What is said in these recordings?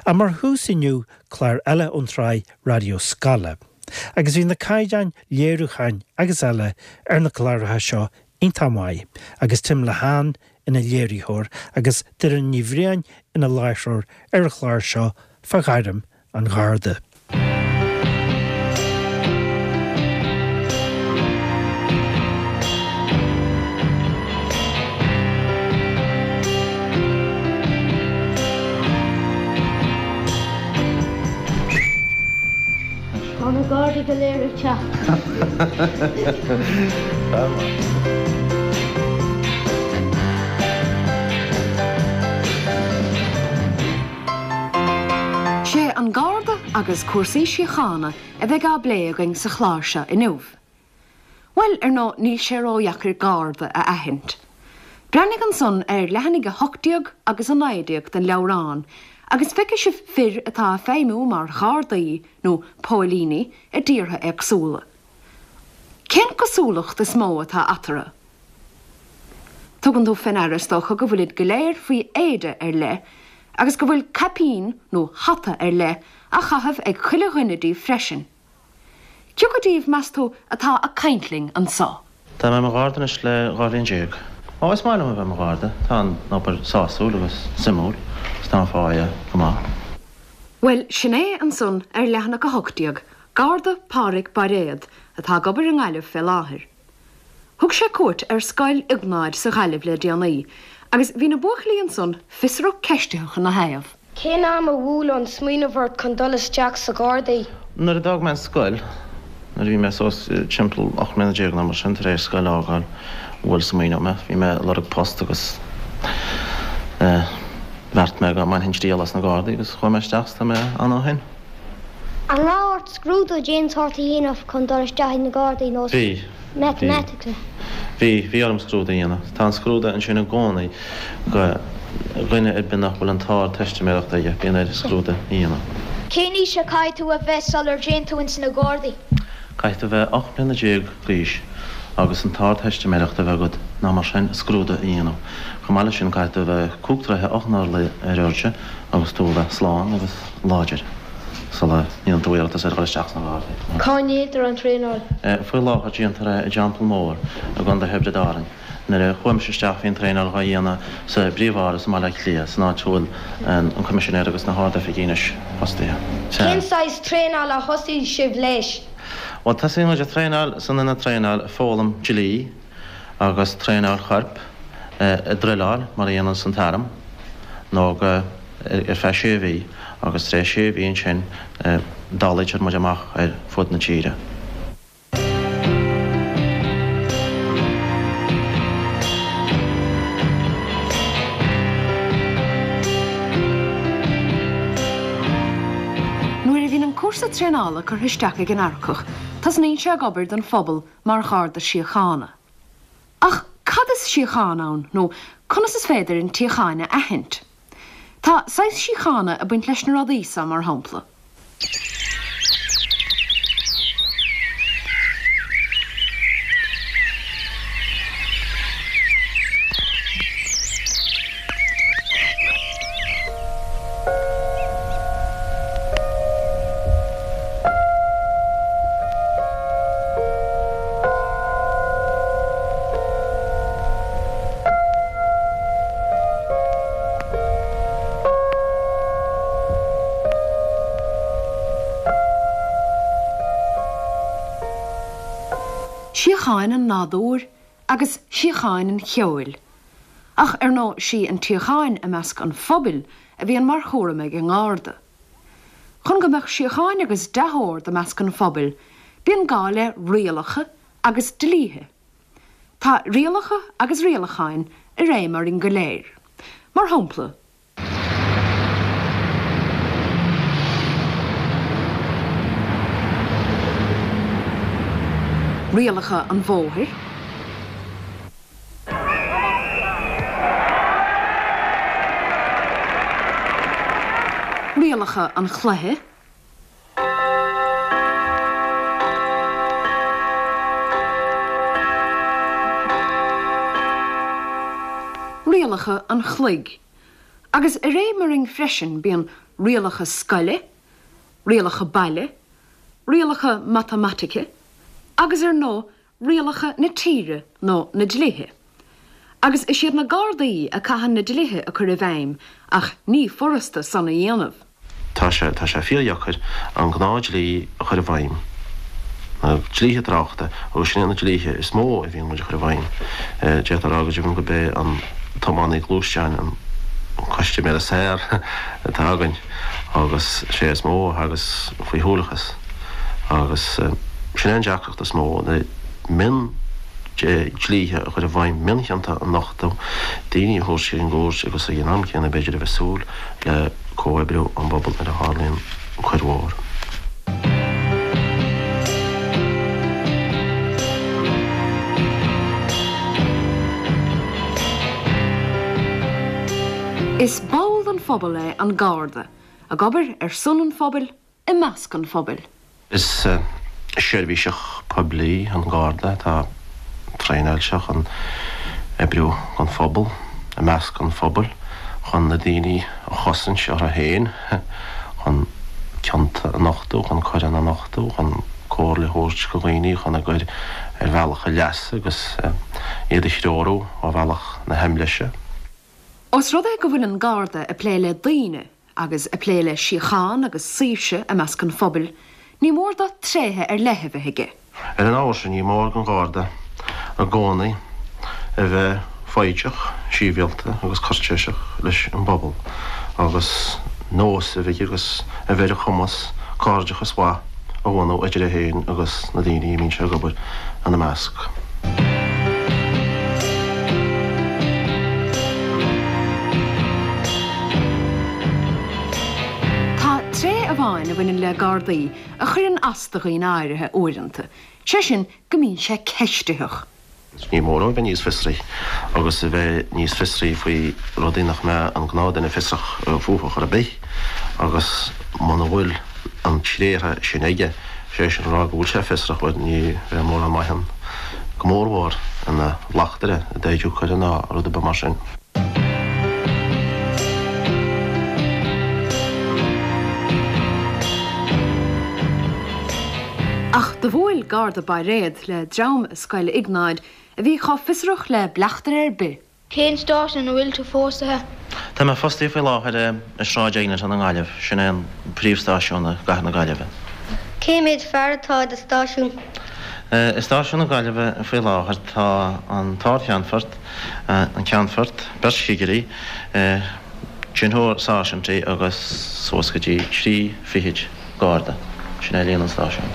Ach mar thús inniu, clár eile ón tsraith Raidió Scoile. Agus bhí na caighdeáin léiriúcháin agus eile ar na cláracha seo iontach maith, agus Tim Lehane ina léiritheoir agus Doireann Ní Bhriain ina láithreoir ar an chlár seo fá ghairm an Gharda. Tá na Gardaí go léir ag teacht. Sé an Garda agus cúrsaí síochána a bheidh á bplé againn sa chlár seo inniu. Bhuel, ar ndóigh, níl sé ródheacair Garda a aithint. Breathnaigh ansan ar leathanaigh 18 agus 19 den leabhrán agus feicfidh sibh fir atá ag feidhmiú mar Ghardaí nó póilíní i dtíortha éagsúla. Cén cosúlacht is mó atá eatarthu? Tugann tú fé ndeara is dócha go bhfuilid go léir faoi éide ar leith agus go bhfuil caipín nó hata ar leith á chaitheamh ag chuile dhuine díobh freisin. Cioca díobh, meas tú, atá ag caint linn anso? Tá mé i mo Gharda anois le 12 bhliain. Ó, is maith liom a bheith i mo Gharda. Tá an obair sásúil agus suimiúil agus tá an pháighe go maith. Bhuel, sin é ansan ar leathanach 18, Garda Pádhraic Bairéad, atá ag obair i nGaillimh fé láthair. Thug sé cuairt ar Scoil Iognáid sa Ghaillimh le déanaí agus bhí na buachaillí ansan fiosrach ceistitheach ina thaobh. Cén am a bhuail an smaoineamh ort chun dul isteach sa Ghardaí? Nuair a d'fhág mé an scoil, nuair a bhí mé suas timpeall 18 mbliana nó mar sin, tar éis scoil a fhágáil, bhuail smaoineamh mé. Bhí mé ag lorg post agus bheart mé go mbainfinn triail as na Gardaí agus chuaigh mé isteach is tá mé ann ó shin. An raibh ort scrúdú d'aon tsórt a dhéanamh chun dul isteach ag na Gardaí nó Bhí. Matamatics? Bhí. Bhí orm scrúdú a dhéanamh. Tá an scrúdú ansin i gcónaí go dhuine ar bith nach bhfuil an t-ardteistiméireacht aige, bíonn air scrúdú a dhéanamh. Cén aois a caithfidh tú a bheith sular dtéann tú ins na Gardaí? Caithfidh tú bheith 18 mbliana d'aois agus an t-ardteistiméireacht a bheith agat nó mar sin scrúdú a dhéanamh. Chomh maith leis sin caithfidh tú a bheith cúig troithe 8 n-orlaí ar airde agus tú a bheith slán agus láidir sula ndéanann tú iarratas ar dhul isteach sna Gardaí. Cá ndéantar an traenáil? Faoi láthair déantar é i dTeampall Mór i gContae Thiobraid Árann. Nuair a chuaigh mise isteach bhí an traenáil dhá dhéanamh sa bPríomh-Áras i mBaile Átha Cliath, san áit a bhfuil an Coimisinéir agus na hArd-Oifigigh anois fostaithe. Cén saghas traenála a thosaigh sibh leis? Bhuel, tosaíonn muid ag traenáil san ionad traenáil, ag foghlaim dlí agus traenáil choirp, ag druileáil mar a dhéananns an t-arm, nó go. ar feadh sé mhí agus tar éis sé mhí ansin dálaítear muid amach ar fud na tíre. Nuair a bhíonn an cúrsa traenála curtha isteach ag an earcach, tosnaíonn sé ag obair don phobal mar Gharda Síochána. Ach cad is síocháin ann, nó conas is féidir an tsíocháin a aithint? Tá saghas síochána ag baint leis na rudaí seo, mar shampla. Síocháin an nádúir agus síocháin an cheoil. Ach ar ndóigh sí an tsíocháin i measc an phobail a bhíonn mar chúram ag an nGarda. Chun go mbeadh síocháin agus dea-ord i measc an phobail, bíonn gá le rialacha agus dlíthe. Tá rialacha agus rialacháin i réim orainn go léir. Mar shampla. Rialacha an bhóthair. Rialacha an chluiche. Rialacha an chloig. Agus i réim orainn freisin bíonn. Rialacha scoile, rialacha baile, rialacha matamaitice agus ar ndóigh rialacha na tíre nó na dlíthe. Agus is iad na Gardaí a caitheann na dlíthe a cur i bhfeidhm ach ní furasta san a dhéanamh. Tá sé, tá sé fíordheacair an gnáth-dhlí a chur i bhfeidhm, na dlíthe tráchta, agus sin iad na dlíthe is mó a bhíonn muid a chur i bhfeidhm. D'fhéadfá a rá go deimhin gurb é an tiománaí gluaisteáin an custaiméir is fearr atá againn agus sé is mó a thagas faoi shúileachas agus sin é an deacracht is mó, na mion dlíthe a chur i bhfeidhm, mionchionta a nochtadh, daoine a thabhairt ar an gcúirt agus ag an am céanna b'fhéidir a bheith súil le comhoibriú ón bpobal nuair a tharlaíonn coir mhór. Is ball den phobal é an Garda, ag obair ar son an phobail, i measc an phobail. Is seirbhíseach poiblí an Garda atá traenáilte chun oibriú don phobal, i measc an phobail, chun na daoine a chosaint orthu féin, chun cionta a nochtadh, chun coireanna a nochtadh, chun comhairle a thabhairt do dhaoine chun a gcur ar bhealach a leasa agus iad a threorú ó bhealach na haimléise. Ós rud é go bhfuil an Garda ag plé le daoine agus ag plé le síocháin agus saoirse i measc an phobail, ní mór dó tréithe ar leith a bheith aige. Ar an ábhar sin, ní mór don Gharda i gcónaí a bheith foighdeach, sibhialta agus cúirtéiseach leis an bpobal agus nós a bheith aige agus a bheith ar a chumas cairdeachas mhaith a bhunú idir é féin agus na daoine a mbíonn sé ag obair ina measc. Tá tréith amháin a bhaineann le Gardaí a chuireann as do dhaoine áirithe uaireanta, sé sin go mbíonn sé ceistitheach. Ní mór dó a bheith níos fiosraí agus a bheith níos fiosraí faoi rudaí nach mbeadh an gnáthdhuine fiosrach fúthu chor ar bith agus muna bhfuil an tréith sin aige, sé sin a rá go bhfuil sé fiosrach, bhuel ní bheidh mórán maith ann, go mórmhór ina bhleachtaire i dtaighdiú coire ná rud ar bith mar sin. Ach do bhuail Garda Bairéad le dream i Scoil Iognáid a bhí chomh fiosrach le bleachtaire ar bith. Cén stáisiún a bhfuil tú fostaithe? Tá mé fostaithe faoi láthair i Sráid Eglinton i nGaillimh, sin é an príomhstáisiún i gcathair na Gaillimhe. Cé mhéad fear atá i do stáisiún? I stáisiún na Gaillimhe faoi láthair tá an tArd-Cheannfort, an Ceannfort, beirt chigirí, deichniúr sáirsintí agus suas go dtí trí fichid garda. Sin é líon an stáisiúin.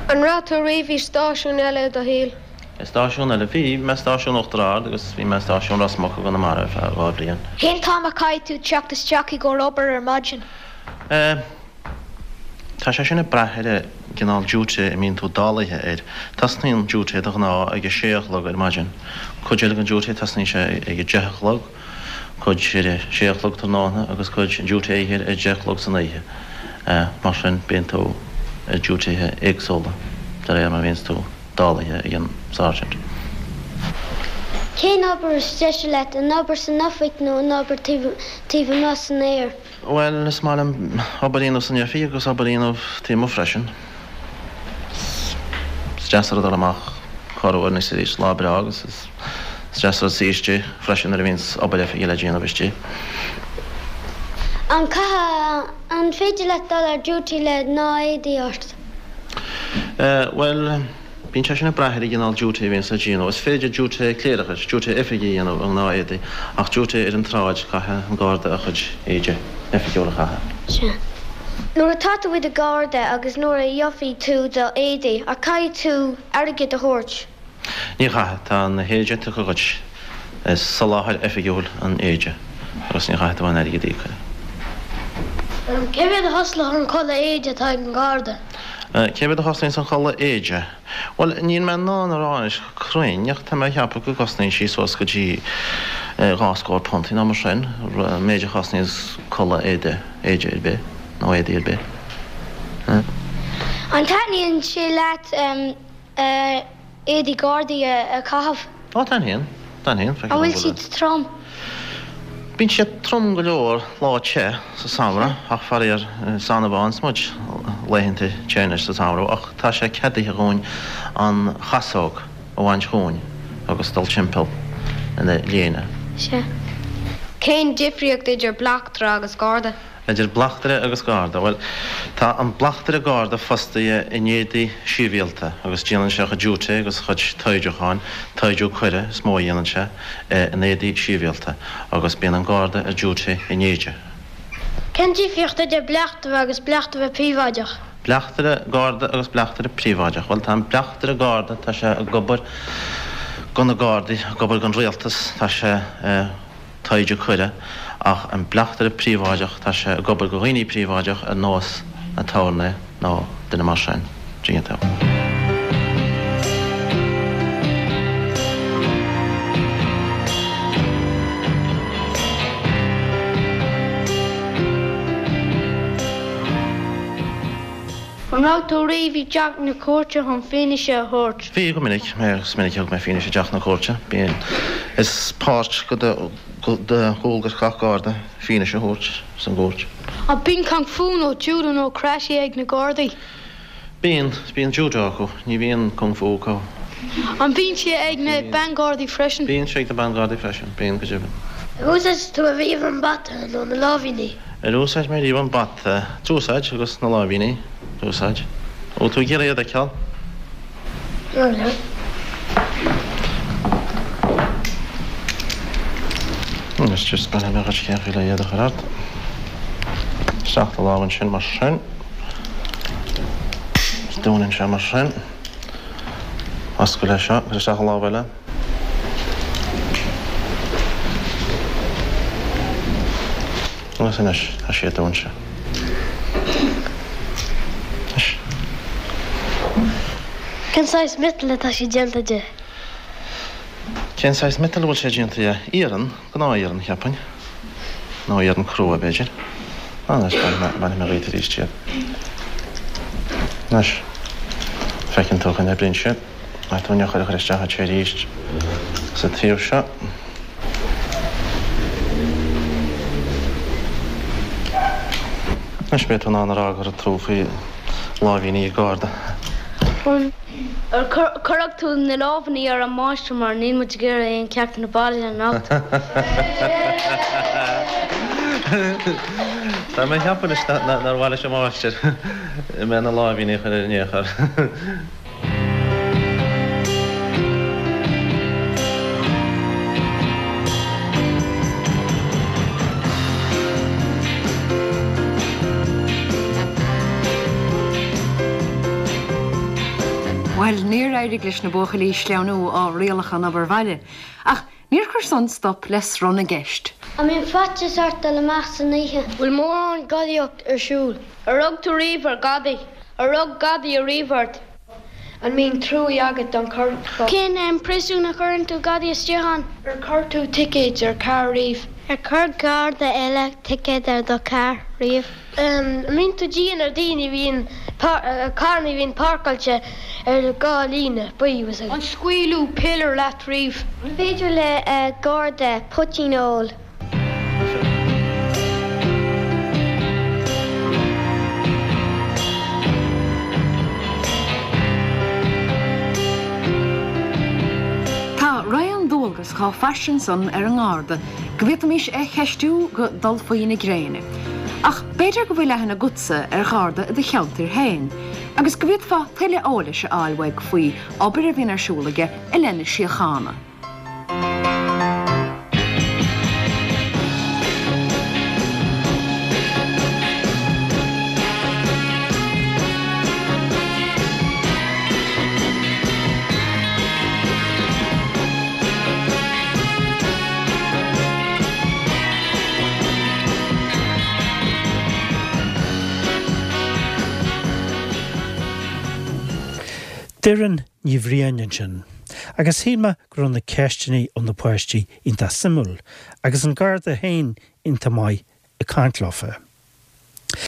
An raibh tú riamh i stáisiún eile i do shaol? I stáisiún eile? Bhí. Bhí mé i stáisiún Uachtar Ard agus bhí mé i stáisiún Ros Muc i gConamara ar feadh 2 bhliain. Cén t-am a caithfidh tú teacht isteach i gcomhair obair ar maidin? Eh. Tá sé sin ag brath ar an gcineál duty a mbíonn tú dálaithe air. Tosnaíonn duty de ghnáth ag a sé a chlog ar maidin. Cuid eile den duty tosnaíonn sé ag a deich a chlog, cuid ar a sé a chlog tráthnóna agus cuid duty oíche ar a deich a chlog san oíche. Mar sin bíonn tú ar dutythe éagsúla de réir mar a bhíonns tú dálaithe ag an sergeant. Cén obair is deise leat, an obair san oifig nó an obair taobh amuigh san aer? Bhuel, is maith liom obair a dhéanamh san oifig agus obair a dhéanamh taobh amuigh freisin. Is deas an rud dul amach corruair anois is arís, lá breá agus is deas an rud suí istigh freisin nuair a bhíonns obair oifige le déanamh istigh. An caithfidh, an féidir leat dul ar duty le gnáth-éadaí ort? Bhuel. Bíonn sé sin ag brath ar an gcineál duty a bhíonns le déanamh. Is féidir duty cléireachais, duty oifige a dhéanamh i ngnáth-éadaí, ach duty ar an tsráid, caithfidh an Garda a chuid éide oifigiúil a chaitheamh. Sea. Nuair atá tú i do Gharda agus nuair a gheobhaidh tú do éadaí, an caithfidh tú airgead a thabhairt? Ní chaithfidh. Tá na héide tugtha dhuit. Is soláthar oifigiúil an éide agus ní chaithfidh tú aon airgead a íoc air. Cé mhéad a chosnaíonn an culaith éide atá ag an Gharda? Cé mhéad a chosnaíonns an chulaith éide? Bhuel, níl mé in ann a rá anois go cruinn, ach tá mé a cheapadh go gcosnaíonn sí suas go dtí dhá scór punt nó mar sin, an méid a chosnaíonns culaith éide, éide ar bith, nó éadaí ar bith. An dtaitníonn sé leat éadaí Gardaí a chaitheamh? Ó, taitníonn. Taitníonn. An bhfuil siad trom? Bíonn sé trom go leor lá te sa samhradh ach faraor is annamh a fhaigheanns muid laethanta te anois sa samhradh ach tá sé ceadaithe dhúinn an chasóg a bhaint dhúinn agus dul timpeall ina léine. Sea. Cén difríocht idir bleachtaire agus garda? Idir bleachtaire agus garda? Bhuel, tá an bleachtaire garda fostaithe in éadaí sibhialta agus déanann sé a chuid duty agus a chuid toimhdiúcháin, toimhdiú coire is mó a dhéanann sé, in éadaí sibhialta agus bíonn an garda ar duty in éide. Cén difríocht idir bleachtaire agus bleachtaire príobháideach? Bleachtaire garda agus bleachtaire príobháideach. Bhuel, tá an bleachtaire garda, tá sé ag obair do na gardaí, ag obair don rialtas, tá sé. toimhdiú coire, ach an bleachtaire príobháideach, tá sé ag obair do dhaoine príobháideach ar nós aturnae nó duine mar sin. Dtuigeann tú. An raibh tú riamh i dteach na cúirte chun fianaise a thabhairt? Bhí, go minic. Is minic a thug mé fianaise i dteach na cúirte. Bíonn. Is páirt de dhualgas gach Garda fianaise a thabhairt san gcúirt. An bíonn kung fu nó judo nó karate ag na Gardaí? Bíonn. Bíonn judo acu. Ní bhíonn kung fu acu. An mbíonn sé ag na Ban-Ghardaí freisin? Bíonn sé ag na Ban-Ghardaí freisin. Bíonn, go deimhin. Ar úsáid tú ariamh an bata nó na láimhíní? Ar úsáid mé riamh an bata? D'úsáid, agus na láimhíní. D'úsáid. Bhfuil tú ag iarraidh iad a fheiceáil? Anois just bainfidh mé dhuit cén chaoi le iad a chur ort. Isteach do lámh ansin mar sin. Dúnann sé mar sin. Oscail é seo, cuir isteach an lámh eile. Agus anois, tá siad dúnta. Anois. Cén saghas miotail atá sé déanta de? Cén saghas miotail a bhfuil sé déanta de? Iarann, gnáth-iarann, cheapfainn. Nó iarann crua, b'fhéidir. Anois, bainfidh mé dhíot arís iad. Anois, feiceann tú go n-oibríonn siad. Caithfidh tú an eochair a chur isteach anseo arís sa taobh seo. Anois beidh tú in ann a rá go raibh tú faoi láimhíní ag Garda. Ar cuirfidh tú na lámhainní ar an máistir mar níl muid ag iarraidh aon ceachtanna baile anocht. Tá mé ag ceapadh anois nár mhaith leis an máistir mé na láimhíní a chur air in aon chor. Bhuel, níor éirigh leis na buachaillí sleamhnú ó rialacha an obair bhaile, ach níor chuir san stop le sruth na gceist. An mbíonn faitíos ort dul amach san oíche? Bhfuil mórán gadaíocht ar siúl? Ar rug tú riamh ar ghadaí? Ar rug gadaí ariamh ort? An mbíonn truaí agat don choirpeach? Cén príosún a chuireann tú gadaí istigh ann? Ar chuir tú ticéid ar charr riamh? Ar chuir garda eile ticéad ar do charr riamh? An mbíonn tú dian ar daoine a bhíonn, carranna a bhíonn páirceáilte ar an líne buí? An scaoileadh piléar leat riamh? An féidir le garda poitín a ól? Tá raon dualgas chomh fairsing san ar an nGarda go bhféadfaimis é cheistiú go dul faoi na gréine. Ach b'fhéidir go bhfuil aithne agatsa ar Gharda i do cheantar féin agus go bhféadfá tuilleadh eolais a fháil uaidh faoi obair a bhíonn ar siúl aige i leith na síochána. Doireann Ní Bhriain ansin. Agus shíl mé go raibh na ceisteanna ó na páistí iontach suimiúil, agus an Garda féin iontach maith ag caint leofa.